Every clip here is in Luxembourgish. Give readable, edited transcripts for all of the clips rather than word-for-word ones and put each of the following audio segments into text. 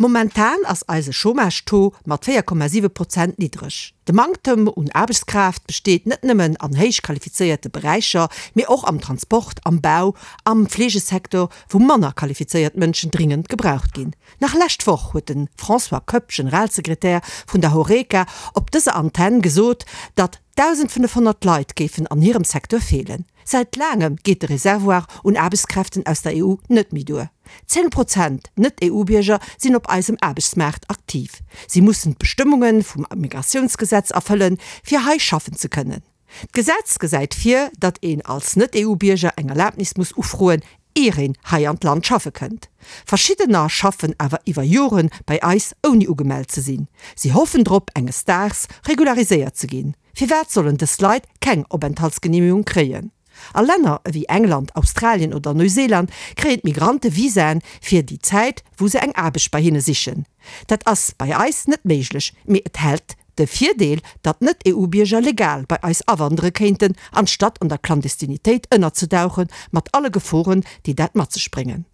Momentan ass eise Chômage-Taux mat 4,7 Prozent niddreg. De Manktem un Aarbechtskraaft besteet net nëmmen an héich qualifizéierte Beräicher, mee och am Transport, am Bau, am Fleegesecteur, wou manner qualifizéiert Mënschen dringend gebraucht ginn. Nach lescht Woch huet de François Koepp, Generalsekretär vun der Horeca, op dëser Antenn gesot, datt 1.500 Leit géifen an hirem Secteur feelen. Säit laangem geet de Reservoir un Aarbechtskräften aus der EU net méi duer. 10 Prozent Net-EU-Bierger sinn op eisem Aarbechtsmaart aktiv. Si mussen d'Bestëmmunge vum Migratiounsgesetz erfëllen, fir hei schaffen ze kënnen. D'Gesetz gesäit vir, datt een als Net-EU-Bierger eng Erlabnis muss ufroen, ier een hei an d'Land schaffe kënnt. Verschiddener schaffen awer iwwer Jore bei eis ouni ugemellt ze sinn. Si hoffen drop, enges Daags regulariséiert ze ginn. Firwat sollen dës Leit keng Openthaltsgeneemegung kréien? A Länner ewéi England, Australien oder Neuseeland kréien d'Migrante Visaen fir déi Zäit, wou se eng Aarbecht bei hinne sichen. Dat ass bei eis net méiglech, mee et hält de Virdeel, datt Net-EU-Bierger legal bei eis awandere kéinten, anstatt an der Clandestinitéit ënnerzedauchen, mat alle Geforen, déi dat mat sech bréngen.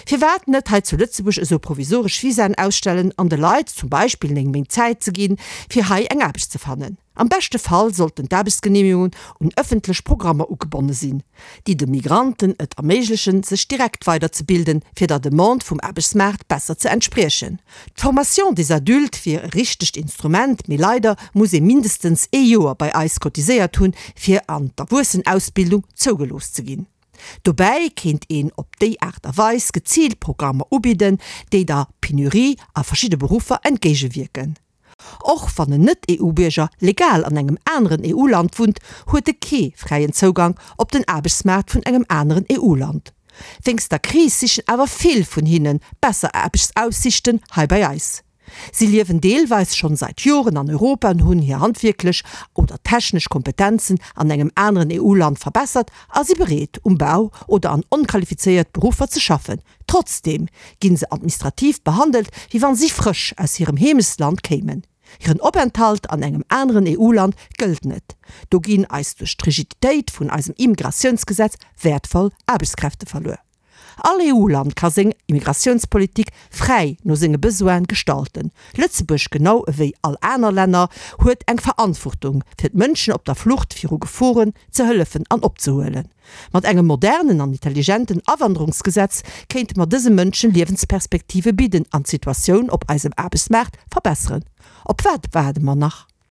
Firwat net hei zu Lëtzebuerg esou provisoresch Visaen ausstellen an de Leit zum Beispill 9 Méint Zäit ze ginn, fir hei eng Aarbecht ze fannen? Am beschte Fall sollten d'Aarbechtsgeneemegungen un ëffentlech Programmer ugebonne sinn, déi de Migranten et erméiglechen, sech direkt weiderzebilden, fir der Demande vum Aarbechtsmaart besser ze entspriechen. D'Formation des adultes wier e richtegt Instrument, mee leider muss ee mindestens ee Joer bei eis cotiséiert hunn, fir an d'Erwuessenausbildung zougelooss ze ginn. Dobäi kéint een op déi Aart a Weis geziilt Programmer ubidden, déi der Penurie a verschidde Beruffer entgéigewierken. Och wann en Net-EU-Bierger legal an engem aneren EU-Land wunnt, huet e kee fräien Zougank op den Aarbechtsmaart vun engem aneren EU-Land. Wéinst der Kris sichen awer vill vun hinne besser Aarbechtsaussichten hei bei eis. Si liewen deelweis schonn seit Joren an Europa an hunn hir handwierklech oder technesch Kompetenzen an engem aneren EU-Land verbessert a si bereet, um Bau oder an onqualifizéiert Beruffer ze schaffen. Trotzdeem ginn se administrativ behandelt, wéi wann si frësch aus hirem Heemechtsland kéimen. Hiren Openthalt an engem aneren EU-Land gëllt net. Do ginn eis duerch d'Rigiditéit vun eisem Immigratiounsgesetz wäertvoll Aarbechtskräfte verluer. All EU-Land ka seng Immigratiounspolitik fräi no senge Besoine gestalten. Lëtzebuerg, genau ewéi all aner Länner, huet eng Verantwortung, fir d'Mënschen op der Flucht viru Geforen ze hëllefen an opzehuelen. Mat engem modernen an intelligenten Awanderungsgesetz kéinte mer dëse Mënschen Liewensperspektive bidden an d'Situatioun op eisem Aarbechtsmaart verbesseren. Op wat waarde mer nach?